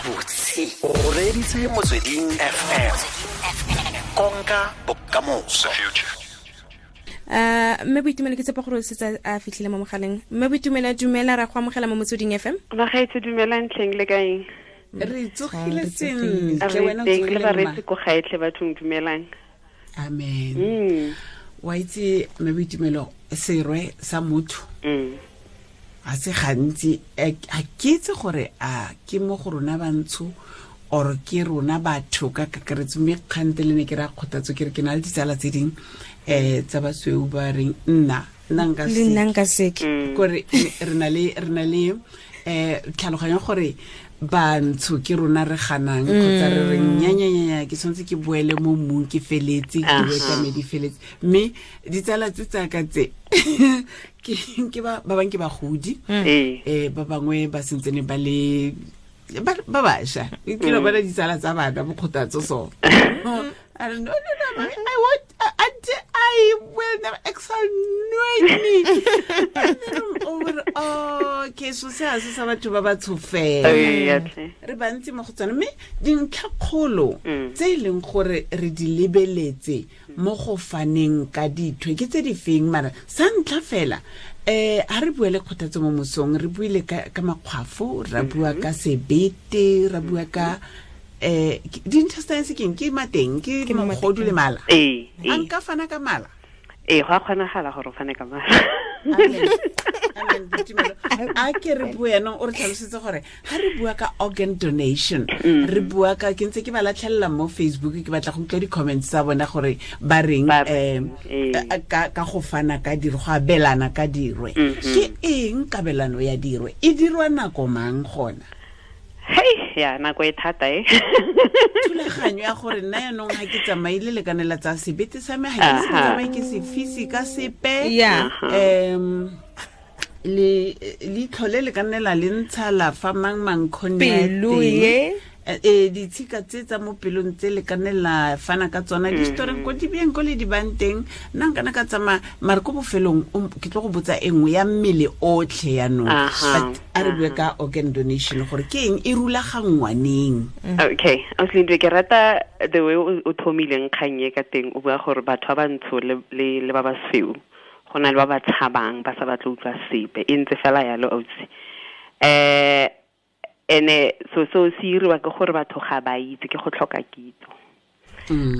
Gabotse o reeditse Motsweding FM, konka bokamoso. Mme Boitumelo, ke tshepa gore o setse a fitlhile mo mogaleng. Mme Boitumelo, dumela, ra go amogela mo Motsweding FM. Bagaetsho, dumelang tlheng, le kaeng? Re tsogile sentle, wena o tsogile? Le bareetsi ko gaetlhe bathong, dumelang. Amen. Wa itse, mme Boitumelo, serwe sa motho ga se gantsi a ke itse gore a ke mo go rona bantsho or ke rona batho ka kakaretso, mme kgante le ne ke ra Kgothatso ke re ke na le ditsala tse dingwe tsa basweu ba reng nna nka Le nna nka seke. Kore re na le tlhaloganyo gore bantsho ke rona re ganang kgotsa re reng nyanyanyanya, ke tshwanetse ke boele mo mmung, ke feletse, ke boe tsa me di feletse. Mme ditsala tse tsaka tse ke ba bangwe ke bagodi, ba bangwe ba sentsene ba le ba bašwa, ke lo bona ditsala tsa bana boKgothatso. So I don't, no, no, no, mommy, I won't, I will never exonerate me. And then I'm over, oh, okay, so se ha se sa batho ba ba tshofela. Re bantsi mo go tsone, mme dintlhakgolo tse e leng gore re di lebeletse mo go faneng ka dithwe ke tse di feng? Mara sa ntlha fela, ha re bua le Kgothatso mo mosong, re buile ka makgwafo, ra bua ka sebete, ra bua ka di-intestines. Keng ke mateng? Ke Ke mo mogodu le mala. Ee. A nka fana ka mala? Ee, go a kgonagala gore o fane ka mala. Amen. Amen, Boitumelo. A ke re bue yanong, o re tlhalosetse gore ga re bua ka organ donation, re bua ka, ke ntse ke ba latlhelela mo Facebook, ke batla go utlwa di-comments tsa bona gore ba reng. Ba reng, ee. Ka go fana ka dirwe, go abelana ka dirwe, ke eng kabelano ya dirwe? E dirwa nako mang gona? Hei, ya nako e thata e. Thulaganyo ya gore nna yanong ga ke tsamaile lekanela tsa sebete sa me, ga ke se ke tsamaye ke se fise ka sepe. Le leitlho le le ka nne la le ntsha la fa mang mang kgone. Pelo ye. Ditshika tse tsa mo pelong tse le ka nne la fana ka tsona di storeng ko di beng ko le di bang teng. Nna nkana ka tsamaya, mare ko bofelong ke tlo go botsa e nngwe ya mmele otlhe yanong. But a re bue ka organ donation, gore ke eng, e rulaganngwa neng? Okay, Auslindwe, ke rata the way o thomileng kgang e ka teng, o bua gore batho ba bantsho le ba basweu go na le ba ba tshabang, ba sa batle utlwa sepe. E ntse fela yalo, ausi. Ene so se iriwa ke gore batho ga ba itse, ke go tlhoka kitso.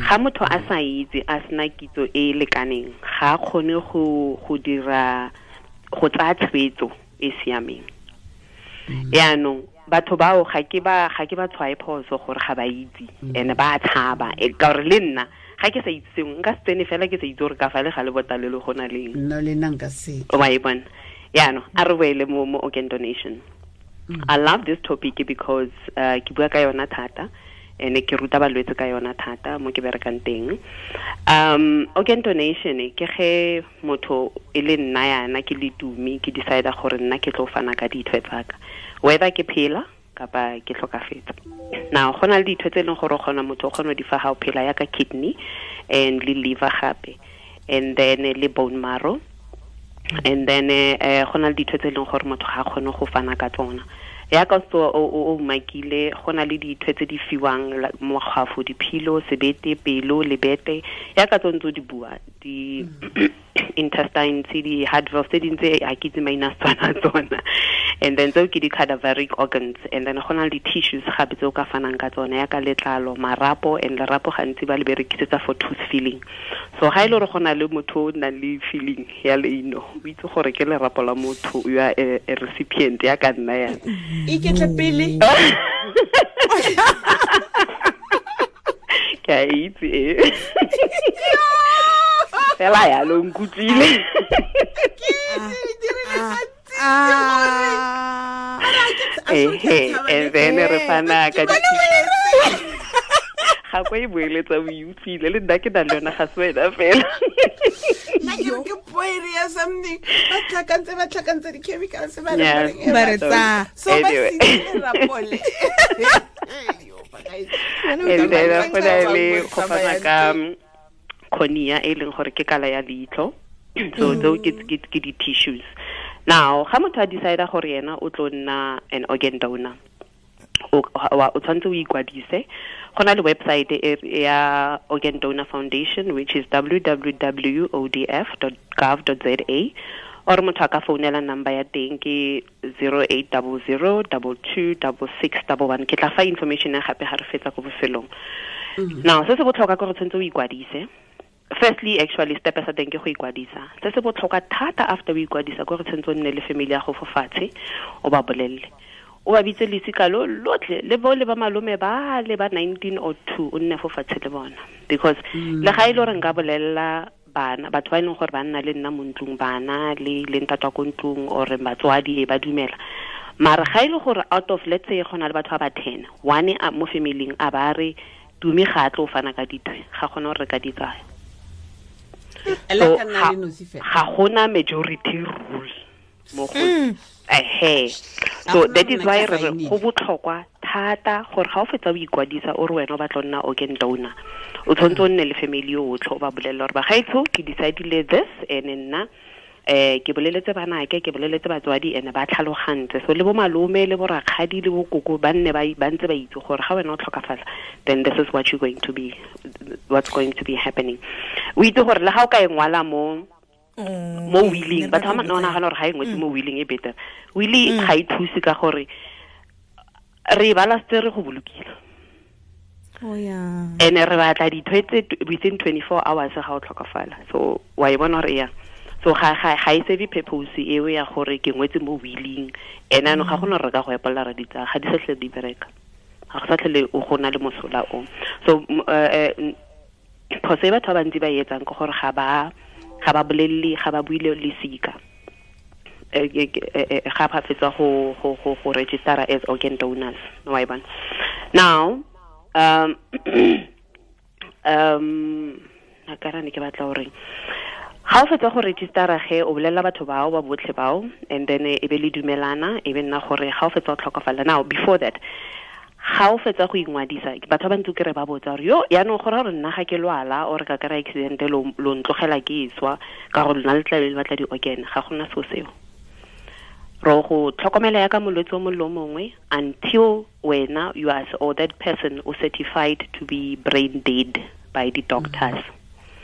Ga motho a sa itse, a sena kitso e e lekaneng, ga a kgone go dira, go tsaya tshwetso e siameng. Yaanong batho bao ga ke ba tshwae phoso gore ga ba itse ene ba tshaba, ka gore le nna ga ke sa itse sengwe, nka se tsene fela ke sa itse gore ka fa le ga le botalelo go na leng. Nna le nna nka se. Wa e bona. Yaanong a re boele mo organ donation. I love this topic because ke bua ka yona thata ene ke ruta balwetse ka yona thata mo ke berekang teng. Organ donation ke ge motho e le nna yana ke le Tumi, ke decide gore nna ke tlo fana ka dithwe tsaka, whether ke phela kapa ke tlhokafetse. Now go na le dithwe tse e leng gore o kgona, motho o kgona go di fa ga o phela, yaka kidney and le liver gape, and then le bone marrow, and then go na le dithwe tse e leng gore motho ga a kgone go fana ka tsona, yaka so o umakile. Go na le dithwe tse di fiwang makgwafo, diphilo, sebete, pelo, lebete, yaka tse ntse o di bua, di intestines, di heart valve, tse dintse ga ke itse maina a Setswana tsona, and then tseo ke di-cadaveric organs. And then go na le di-tissues gape tse o ka fanang ka tsona, yaka letlalo, marapo, and lerapo gantsi ba le berekisetsa for tooth filling. So ga e le gore go na le motho o nang le filling ya leino, o itse gore ke lerapo la motho you are a recipient ya ka nna yana. Iketle pele. Ke a itse e fela yalo, nkutlwile. Ehe, and then re fana ka ga kwa e boeletsa, o e utlwile, le nna ke na le yona, ga se wena fela. Nna ke re ke poere ya something, ba tlhakantse di-chemicals ba re Ba re tsa. So ba Anyway. sentse lerapole. And then go na le go fana ka cornea, e leng gore ke kala ya leitlho. So tseo ke di-tissues. Now ga motho a decide gore yena o tlo nna an organ donor, o O tshwanetse o ikwadise. Go na le website ya Organ Donor Foundation, which is www.odf.gov.za, or motho a ka founela number ya teng ke 0800 226611. Ke tla fa information ya gape ga re fetsa ko bofelong. Now se se botlhokwa ke gore tshwanetse o ikwadise. Firstly, actually, step sa teng ke go ikwadisa. Se se botlhokwa thata after o ikwadisa ke gore tshwanetse o nne le family ya go fo fatshe, o ba bolelle, o ba bitse lesika lo lotlhe le bo le ba malome ba le ba 1902, o nne fo fatshe le bona, because le ga e le gore nka bolella bana, batho ba e leng gore ba nna le nna mo ntlong, bana le ntatwa ko ntlong or batswadi e ba dumela, mara ga e le gore out of, let's say, go na le batho ba ba 10, one a mo familing a ba re Tumi ga a tlo fana ka dithwe, ga gona gore re ka di tsaya. Ela ka nna le nosi fela. Ga gona majority rule mo go ehe. So gona that is nna why ke re re saenile. go botlhokwa thata gore ga o fetsa o ikwadisa o re wena o batla go nna organ donor, o tshwanetse o nne le family yotlhe, o ba bolelle gore bagaetsho ke decidile this, and nna ke boleletse banake, ke boleletse batswadi, and ba tlhalogantse. So le bo malome le bo rakgadi le bo koko ba nne ba ntse ba itse gore ga wena o tlhokafala, then this is what you're going to be, what's going to be happening. O itse gore le ga o ka e ngwala mo mo willing, batho ba nagana gore ga e ngwetse mo willing e better. Willing ga e thuse ka gore re e bala setse re go bolokile. Oh, yeah. And re batla dithwe tse within 24 hours ga o tlhokafala. So wa e bona gore ya. So ga e serve purpose eo ya gore ke ngwetse mo willing. Ene ano ga gona re ka go epolla ra di tsaya, ga di sa tlhole di bereka. Ga go sa tlhole o go na le mosola o. So phoso e batho ba bantsi ba e etsang ke gore ga ba bolelle, ga ba buile lesika. Ga ba fetsa go register as organ donors. Wa e bona. Now, a ka ra ne ke batla gore ga o fetsa go registera ge o bolelela batho bao ba botlhe bao, and then e be le dumelana, e be nna gore ga o fetsa go tlhokafala. Now before that, ga o fetsa go ingwadisa, batho ba bantsi ke re ba botsa gore yo yaanong go raya gore nna ga ke lwala or ka kry-a accident lo ntlogela ke swa ka gore lona le tla be le batla di-organ, ga gona seo seo. Ro go tlhokomela ya ka molwetse o mongwe le o mongwe until wena you are or that person o certified to be brain dead by the doctors.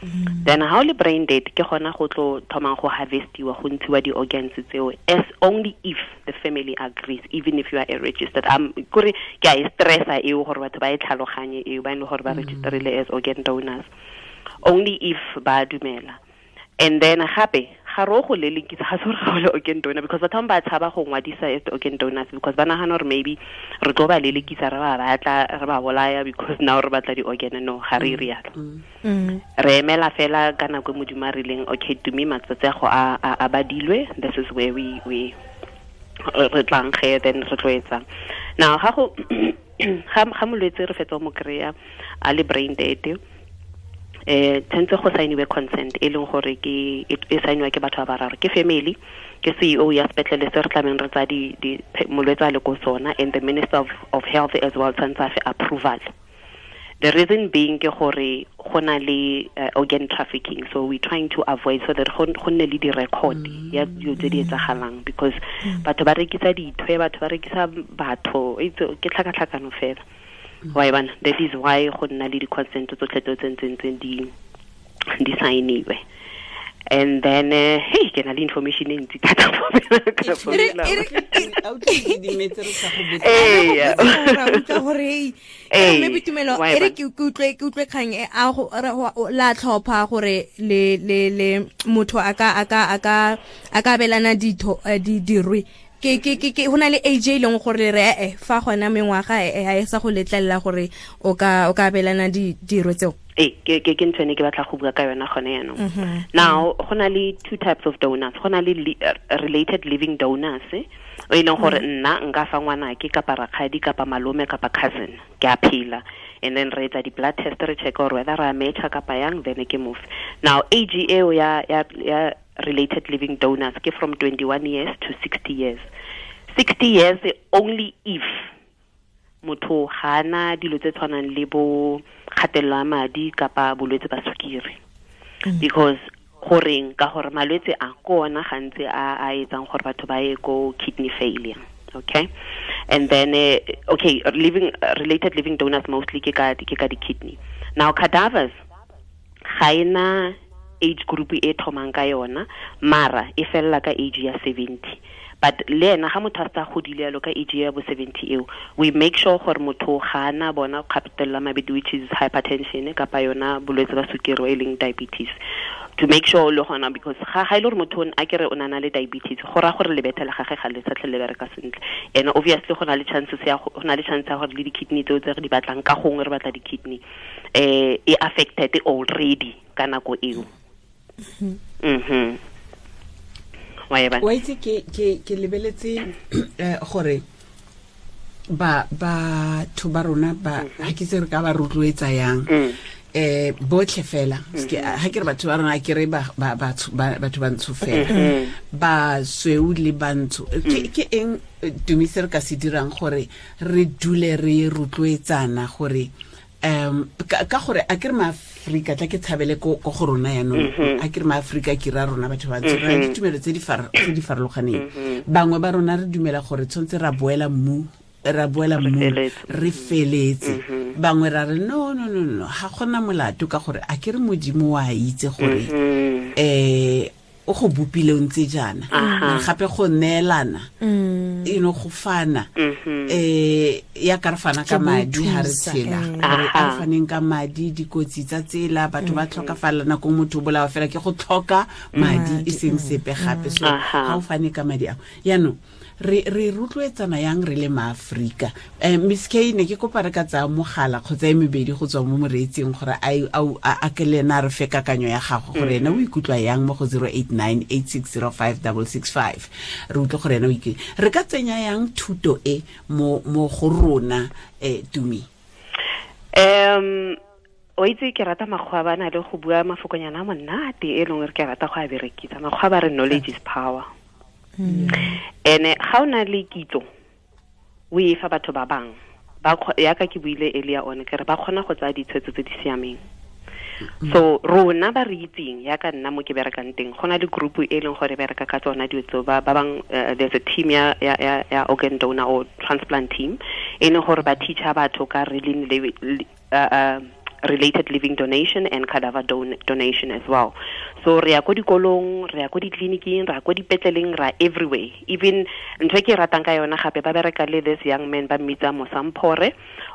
Then how le brain dead ke gona go tlo thomang go harvestiwa, go ntshiwa di-organs tseo, as only if the family agrees, even if you are a registered. Kore ke a e stressa eo gore batho ba e tlhaloganye eo, ba e leng gore ba registerile as organ donors, only if ba dumela. And then gape ga re o go lelekisa, ga se gore ga o le organ donor, because batho ba tshaba go ngwadisa as organ donors because ba nagana gore maybe re tlo ba lelekisa, re ba batla, re ba bolaya because now re batla di-organ. No, ga re rialo. Re emela fela ka nako e Modimo a rileng, okay, Tumi, matsatsi a go a badilwe, this is where we re tlang ge, then re tlo etsang. Now ga go ga molwetse re fetsa go mo kry-a a le brain dead, tshwanetse go signiwe consent e leng gore ke e signiwa ke batho ba bararo, ke family, ke CEO ya sepetlele se re tlameng re tsaya molwetse a le ko sona, and the Minister of Health as well tshwanetse a fe approval. The reason being ke gore go na le organ trafficking, so we're trying to avoid so that go nne le di-record ya dilo tse di etsagalang, because batho ba rekisa dithwe, batho ba rekisa batho, ke tlhakatlhakano fela. Wa e bona? That is why go nna le di-consent tsotlhe tse tse ntseng di signiwe. And then hey, ke na le information e ntsi thata mo ka founela. Autlwe di dimetse re sa go botsa. Ee, Re a utlwa gore, hey, Ee, mme Boitumelo, wa e e re bona. ke utlwe kgang e, a go, re, go, o, la tlhopha gore le, le, le motho a ka, a ka, a ka, a ka abelana ditho, dirwe. Ke, ke, ke, ke, ho na le age e leng gore re, fa gona mengwaga, ha e sa go letlelela gore o ka abelana dirwe tseo. Ee, ke ntho ene ke batla go bua ka yona gone jaanong. Now, go na le two types of donors. Go na le related living donors, o e leng gore nna nka fa ngwanake kapa rakgadi kapa malome kapa cousin, ke a phela. And then re etsa di-blood test, re check gore whether re a matcha kapa yang, then ke move. Now, age eo ya related living donors ke from 21 years to 60 years. 60 years only if motho ga ana dilo tse tshwanang le bo kgatelelo ya madi kapa bolwetse ba sukiri. Because goreng, ka gore malwetse a ke ona gantsi a etsang gore batho ba ye ko kidney failure. Okay, and then okay, living related living donors mostly ke ka di-kidney. Now cadavers ga ena age group e thomang ka yona, mara e fella ka age ya 70. But le ena ga motho a sa godile yalo ka age ya bo 70 eo, we make sure gore motho ga ana bona kgapetella mabedi, which is hypertension kapa yona bolwetse ba sukiri e leng diabetes, to make sure le gona, because ga ile gore motho a kere o na le diabetes, go ra gore lebethe la gagwe ga le sa tlhole le bereka sentle. And obviously go na le chances ya go na le chance ya gore le di-kidney tseo tse re di batlang, ka gongwe re batla di-kidney e affected already ka nako eo. Wa itse ke lebeletse gore ba batho ba rona ba ha ke se re ka ba rotloetsa yang botlhe fela, ha ke re batho ba rona, ke re ba batho ba ntsho fela, ba sweu le bantsho, ke eng Tumi se re ka se dirang gore re dule re rotloetsana gore ka gore a ke re maAfrika tla ke tshabele ko go rona yanong, a ke re maAfrika ke ra rona batho ba ntsho, re ditumelo tse di farologaneng. Bangwe ba rona re dumela gore tshwanetse ra boela mmu, re feletse. Bangwe ra re no ga gona molato, ka gore a ke re Modimo wa itse gore o go bopile o ntse jaana, gape go neelana, you know, go fana, ya ka re fana ka madi ha re tshela, gore a re faneng ka madi, dikotsi tsa tsela, batho ba tlhokafala nako motho o bolawa fela ke go tlhoka madi e seng sepe gape. So ga o fane ka madi ao yaanong re rotloetsana yang re le maAfrika. Miss K, ne ke kopa re ka tsaya mogala kgotsa e mebedi go tswa mo moreetsing gore a ke le ena a re fe kakanyo ya gago gore ena o ikutlwa yang mo go 089 8605 665. Re utlwe gore ena o ikutlwa. Re ka tsenya yang thuto e mo go rona, Tumi? O itse ke rata makgwa ba na le go bua mafokonyana a monate e leng re ke rata go a berekisa. Makgwa ba re knowledge is power. Ene ga o na le kitso o e fa batho ba bang, ba yaka ke buile earlier on ke re ba kgona go tsaya ditshwetso tse di siameng. So rona ba re itseng yaka nna mo ke berekang teng, go na le group e leng gore bereka ka tsona dilo tseo, ba bang there's a team ya organ donor or transplant team e leng gore ba teacher batho ka related living donation and cadaver donation as well. So re ya ko dikolong, re ya ko ditleliniking, re ya ko dipetleleng, ra everywhere. Even ntho e ke ratang ka yona gape, ba bereka le this young man ba mmitsa Mosamphore,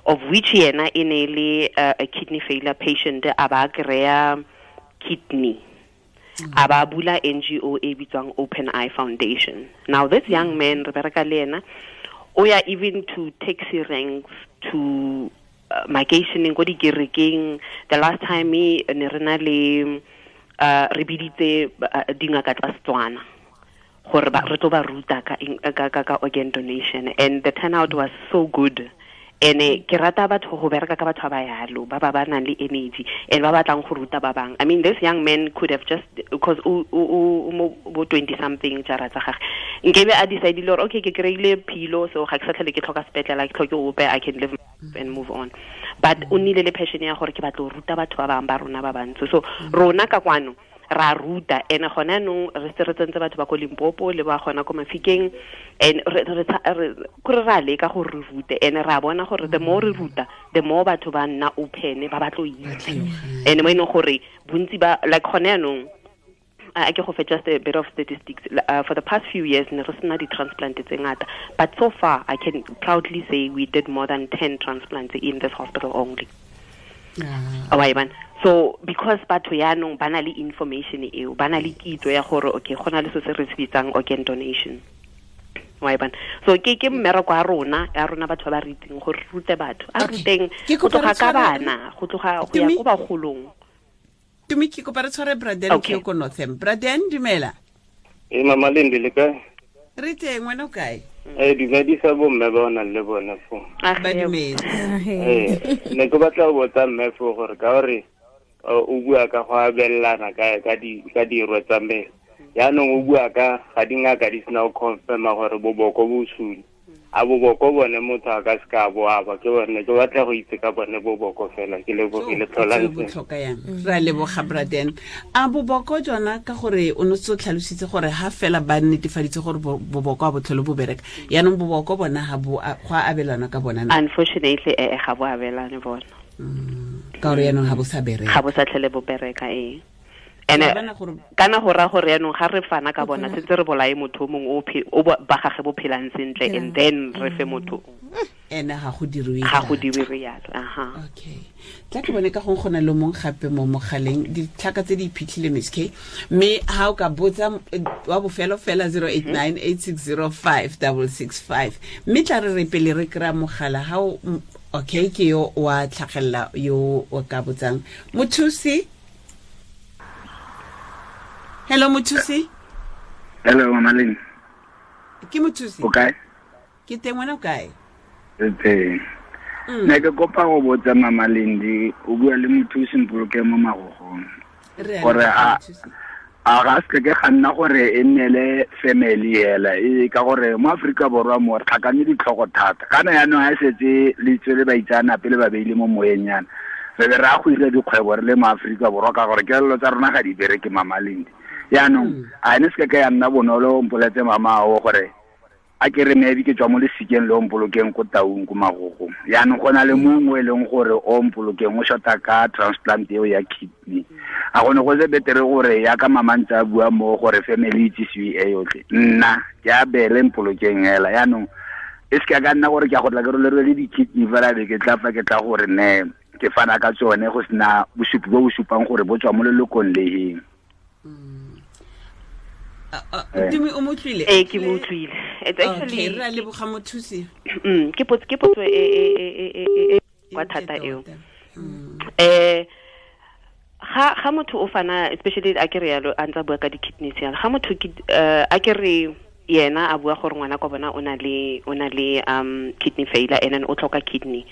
of which yena e ne le a kidney failure patient, a ba kry-a kidney. A ba bula NGO e bitswang Open Eye Foundation. Now this young man re bereka le yena, o ya even to taxi ranks, to makeisheneng ko dikerekeng. The last time ne re na le re biditse dingaka tsa Setswana gore re tlo ba ruta ka organ donation, and the turnout was so good. And ke rata batho go bereka ka batho ba yalo, ba ba nang le energy and ba batlang go ruta ba bang. I mean, this young man could have just, because o mo bo 20 something jara tsa gagwe, nkebe a decide gore okay, ke kry-ile philo, so ga ke sa tlhole ke tlhoka sepetlele, ke tlhoke ope, I can live and move on. But o nnile le passion ya gore ke batla go ruta batho ba bang ba rona ba bantsho. So rona ka kwano ra ruta, and gone anong re se re tsentse batho ba ko Limpopo le ba gona ko Mafikeng, and re kore ra leka gore re rute, and ra bona gore the more re ruta, the more batho ba nna open, ba batlo itse. And mo e leng gore bontsi ba like gone anong, I ke go fe just a bit of statistics. For the past few years ne re sena di-transplant tse ngata, but so far I can proudly say we did more than 10 transplants in this hospital only. So because batho yaanong ba na le information eo, ba na le kitso ya gore okay, go na le se se re se bitsang organ donation. So ke mmereko wa rona, ya rona batho ba ba re itseng gore rute batho, a ruteng go tloga ka bana, go tloga go ya ko bagolong. Tumi, ke kopa re tshware Braden ke ko Northam. Braden, dumela. Mama Lindi, le kae? Re teng, wena o kae? Dumedisa bomme ba o nang le bone fo. Ba dumetse. Ne ke batla go botsa mme fo gore ka gore o bua ka go abelana ka dirwe tsa mmele. Yaanong o bua ka ga dingaka di sena go confirma gore boboko bo sule. A boboko bone motho a ka se ka bo aba, ke bone ke batla go itse ka bone boboko fela, ke lebogile tlholang botlhoka yang. Re a leboga Braden. A boboko jona ka gore o ne o tlhalositse gore ha fela ba netefaditse gore boboko a botlhole bo bereka, yaanong boboko bona ha bo go a abelana ka bona? Unfortunately ga bo abelane bona. Ka gore yaanong ha bo sa bereka. Ga bo sa tlhele bo bereka ee. Ene kana go ra gore yaanong ga re fana ka bona sentse re bolae motho mongwe o ba gage bo phelang sentle, and then re fe motho ene ga go dirwe yalo. Aha, okay, tla ke bone ka gong gona le mong gape mo mogaleng, ditlhaka tse di iphitlhile Miss K, mme ha o ka botsa wa bofelo fela 0898605665, mme tla re pele re kry-a mogala ha o okay ke yo wa tlhagelela yo o ka botsang. Mothusi. Hello Mothusi. Hello Mama Lynn. Ke Mothusi. O kae? Ke teng, wena o kae? Ke teng. Ne ke kopa go botsa Mama Lindi, o bua le Mothusi Mpolokeng mo Magogong. Gore a ga se ke ga nna gore e nnele family hela, e ka gore mo Afrika Borwa mo re tlhakane ditlhogo thata. Kana yaanong ha setse le tswele baitseanape le ba beile mo moyeng yana, re be re a go ira dikgwebo re le mo Afrika Borwa ka gore kelelo tsa rona ga di bereke Mama Lindi. Yaanong a ne se ka ya nna bonolo mpoletse mama o gore a ke re maybe ke tswa mo lesikeng le o Mpolokeng ko Taung ko Magogong, yaanong go na le mongwe e leng gore o Mpolokeng o shota ka transplant eo ya kidney. A gone go se betere gore ya ka mama ntse a bua mo gore family itsisiwe e yotlhe, nna ke a bele Mpolokeng hela. Yaanong e se ka nna gore ke a go tla ke rolerwe le di-kidney fela be ke tla fa ke tla gore ne ke fana ka tsone go sena bosupi bo bo supang gore bo tswa mo lelokong le heng. Tumi o motlwile? Ee, ke mo utlwile. It's actually okay, re a leboga Mothusi. Ke potso e kwa thata eo. Ga motho o fana, especially a ke re yalo a ntse a bua ka di-kidneys yalo, ga motho a ke re yena a bua gore ngwana kwa bona o na le kidney failure and then o tlhoka kidney,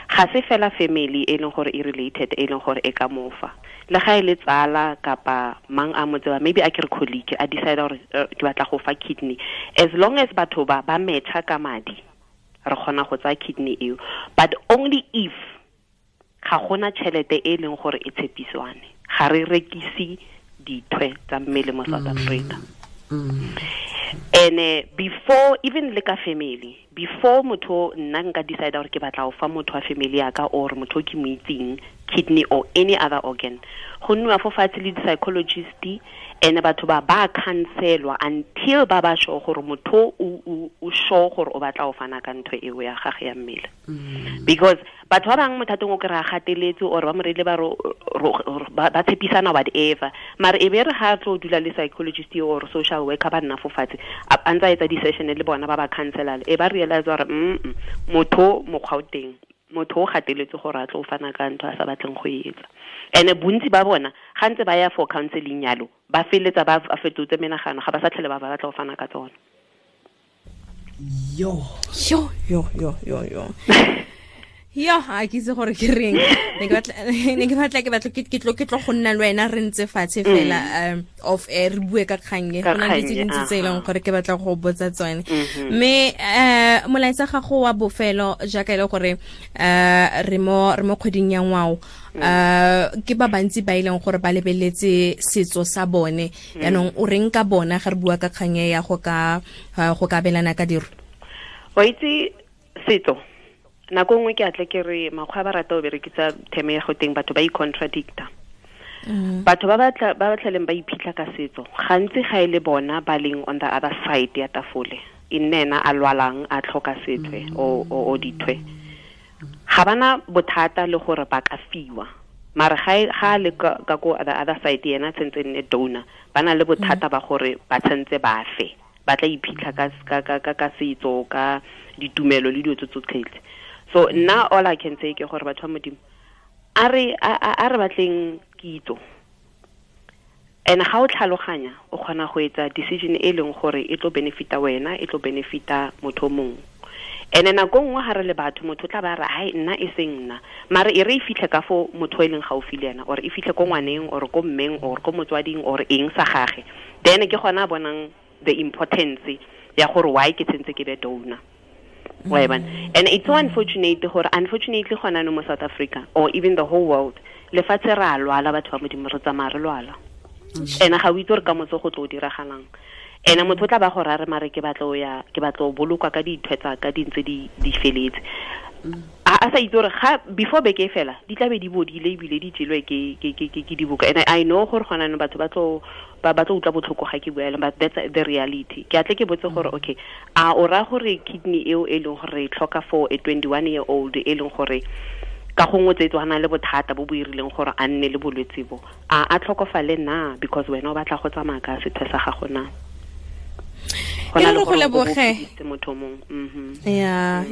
ga se fela family e leng gore e related e leng gore e ka mofa, le ga e le tsala kapa mang a mo tseba, maybe a ke re colleague a decide gore ke batla go fa kidney, as long as batho ba matcha ka madi re kgona go tsaya kidney eo, but only if ga gona tšhelete e leng gore e tshepiswane. Ga re rekise dithwe tsa mmele mo South Africa. And before even le ka family, before motho nna nka decide gore ke batla go fa motho wa family ya ka or motho ke mo itseng kidney or any other organ, go nniwa fo fatshe le di-psychologist, and batho ba counselwa until ba ba sure gore motho o sure gore o batla go fana ka ntho eo ya gage ya mmele. Because batho ba bangwe mothatong o kry-a gateletse or ba mo reile ba tshepisana whatever, mare e be re ga tlo dula le psychologist or social worker ba nna fo fatshe a ntse a etsa di-session le bona ba counsela, e ba realize gore motho mokgwa o teng, motho o gateletse gore a tlo fana ka ntho a sa batleng go e etsa. And bontsi ba bona ga ntse ba ya for counseling yalo, ba feletsa ba fetotse menagano, ga ba sa tlhele ba batla go fana ka tsona. Yo yo yo yo yo yo yo, a ke itse gore ke reng. Ne ke batla ke tlo go nna le wena re ntse fatshe fela off air re bue ka kgang e, go na le tse dintsi tse e leng gore ke batla go botsa tsone. Mme molaetsa gago wa bofelo jaaka e le gore re mo kgweding ya ngwao, ke ba bantsi ba e leng gore ba lebeletse setso sa bone, yaanong o reng ka bona ga re bua ka kgang e ya go ka abelana ka diro? Wa itse setso nako nngwe ke atle ke re makgwa ba rata o berekisa theme ya go teng batho ba i-contradicta. Batho ba ba tlheleng ba iphitlha ka setso gantsi ga e le bona ba leng on the other side ya tafole, e nne ena a lwalang a tlhoka sethwe o dithwe, ga bana bothata le gore ba ka fiwa, mare ga le ka ko the other side yena tshentse nne donor, ba na le bothata ba gore ba tshentse ba fe, ba tla iphitlha ka setso, ka ditumelo le dilo tse tsotlhe. So nna all I can say ke gore batho ba Modimo a re batleng kitso, and ga o tlhaloganya o kgona go etsa decision e leng gore e tlo benefita wena, e tlo benefita motho mongwe. And nako nngwe ga re le batho, motho tla ba re hai nna e seng nna, mare e re e fitlhe ka fo motho e leng gaufi le ena, or e fitlhe ko ngwaneng or ko mmeng or ko motswading or eng sa gage, then ke gona a bonang the importance ya gore why ke tshentse ke be donor. Wa e bona? And it's so unfortunate gore unfortunately gona no mo South Africa or even the whole world, lefatshe re a lwala, batho ba Modimo, re tsamaya re lwala. Ene ga o itse gore ka motse go tlo o diragalang. Ene motho o tla ba gore a re mare ke batla o ya, ke batla o bolokwa ka dithwe tsa ka di ntse di feletse. A sa itse gore ga before beke e fela di tla be di bodile ebile di jelwe ke dibuka. And I know gore gona no batho ba tlo ba tlo utlwa botlhoko ga ke bua, but that's the reality. Ke atle ke botse gore okay, a o ra gore kidney eo e leng gore e tlhoka for a 21 year old e leng gore ka gongwe tse tswana le bothata bo bo irileng gore a nne le bolwetse bo, a tlhokofale na because wena o batla go tsamaya ka sethwe sa gago na? E re go leboge motho mongwe. Ya,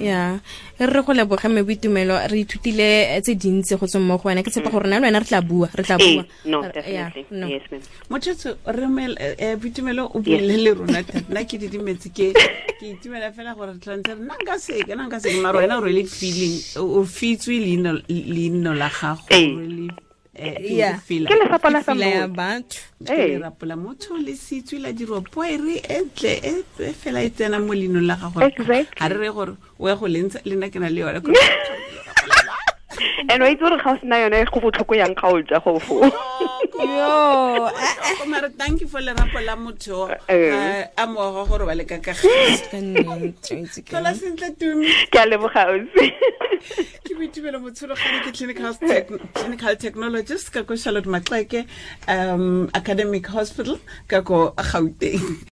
e re go leboge mme Boitumelo, re ithutile tse dintsi go tswa mo go wena. Ke tshepa gore nna le wena re tla bua, re tla bua. No, definitely. Yes, ma'am. Motho re Boitumelo o buile le rona thata. Nna ke didimetse, ke itumela fela gore re tlantse re nna nka seke, nna nka seke, mara wena o really feeling, o fitswe leino la gago, really ke lesapo la ya batho. Ke lerapo la motho le sitswe la dirwa poere e ntle e fela e tsena mo leinong la gago. Ga re re gore o ya go lentsha, le nna ke na le yone. And wa itse gore ga o sena yone go botlhoko yang ga o ja go fo. Yo, mara thank you for lerapo la motho a moago gore ba le ka kagiso. Tlhola sentle, Tumi. Ke a leboga, ausi. Ke Boitumelo Motshologane, ke clinical technologist ka ko Charlotte Maxeke Academic Hospital ka ko Gauteng.